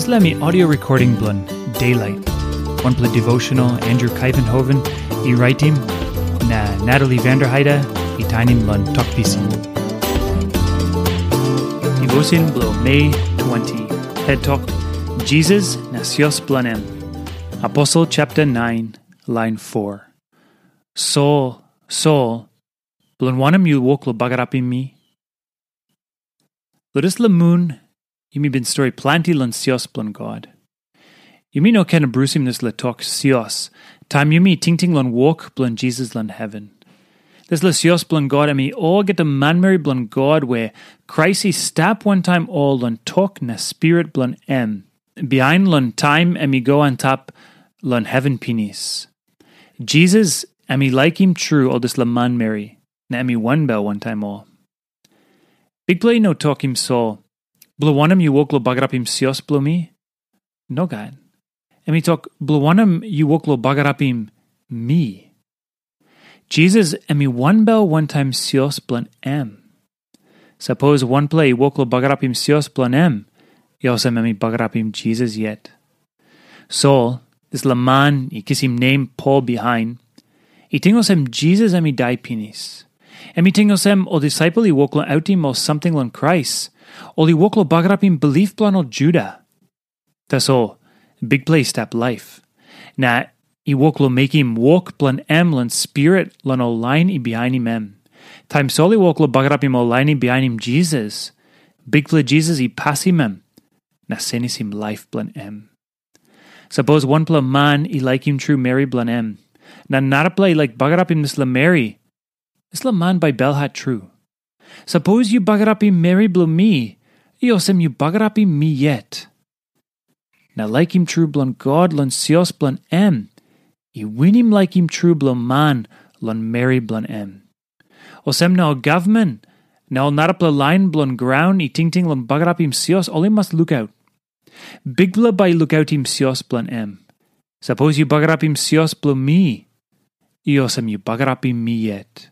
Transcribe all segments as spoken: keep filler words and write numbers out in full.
Dispela mi audio recording bilong Daylight, wanpela devotional Andrew Kaivenhoven i raitim, na Natalie Vanderheide i tainim long Tok Pisin. Devotion bilong Mei twenty, het tok, Jisas na sios bilong em. Aposel chapter nine, line four. Sol, Sol, bilong wanem yu wok long bagarapim mi? Long dispela mun, yumi bin stori planti long sios bilong God. Yumi no ken abrusim dispela tok sios, taim yumi tingting long wok bilong Jisas long heven. Dispela sios bilong God em i olgeta manmeri bilong God we Krais i stap wantaim ol long tok na spirit bilong em, bihain long taim em i go antap long heven pinis. Jisas em i laikim tru ol dispela manmeri, na em i wanbel wantaim ol. Bikpela i no tokim Sol, bilong wanem yu wok long bagarapim sios bilong mi? Nogat. Em i tok, bilong wanem yu wok long bagarapim mi? Jisas em i wanbel wantaim sios bilong em. Sapos wanpela i wok long bagarapim sios bilong em, i olsem em i bagarapim Jisas yet. Sol, dispela man i kisim nem Pol bihain, i ting olsem Jisas em i dai pinis. Em i ting olsem ol disaipel i wok long autim ol samting long Krais, ol i wok long bagarapim bilip bilong ol Juda. Tasol Bikpela i stap laip, na i wok long mekim wok bilong em long spirit long ol lain i bihainim em. Taim Sol i wok long bagarapim ol lain i bihainim Jisas, Bikpela Jisas i pasim em na senisim laip bilong em. Sapos wanpela man i laikim tru meri bilong em, na narapela i laik bagarapim dispela meri, dispela man bai belhat tru. Sapos yu bagarapim meri bilong mi, i olsem yu bagarapim mi yet. Na laikim tru bilong God long sios bilong em, i winim laikim tru bilong man long meri bilong em. Olsem na ol gavman na ol narapela lain bilong graun i tingting long bagarapim sios, ol i mas lukaut. Bikpela bai i lukautim sios bilong em. Sapos yu bagarapim sios bilong mi, i olsem yu bagarapim mi yet.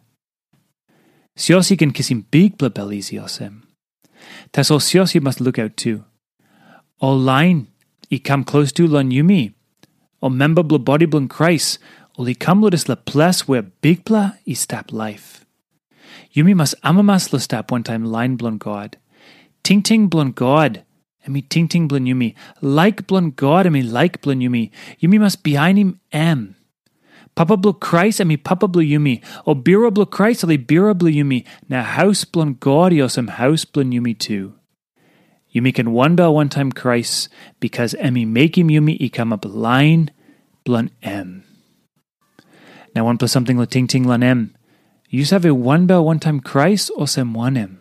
Sios i ken kisim bikpela bel isi olsem. Tasol sios i mas lukaut tu. Ol lain i kam klostu long yumi, ol memba bilong bodi bilong Krais, ol i kam long dispela ples we Bikpela i stap laip. Yumi mas amamas long stap wantaim lain bilong God. Tingting bilong God, em i tingting bilong yumi. Laik bilong God, em i laik bilong yumi. Yumi mas bihainim em. Papa bilong Krais em i papa bilong yumi, o birua bilong Krais ol i birua bilong yumi, na haus bilong God i olsem haus bilong yumi tu. Yumi ken wanbel wantaim Krais, bikas em i mekim yumi i kamap lain bilong em. Na wanpela samting long tingting long em, yu save wanbel wantaim Krais olsem wanem?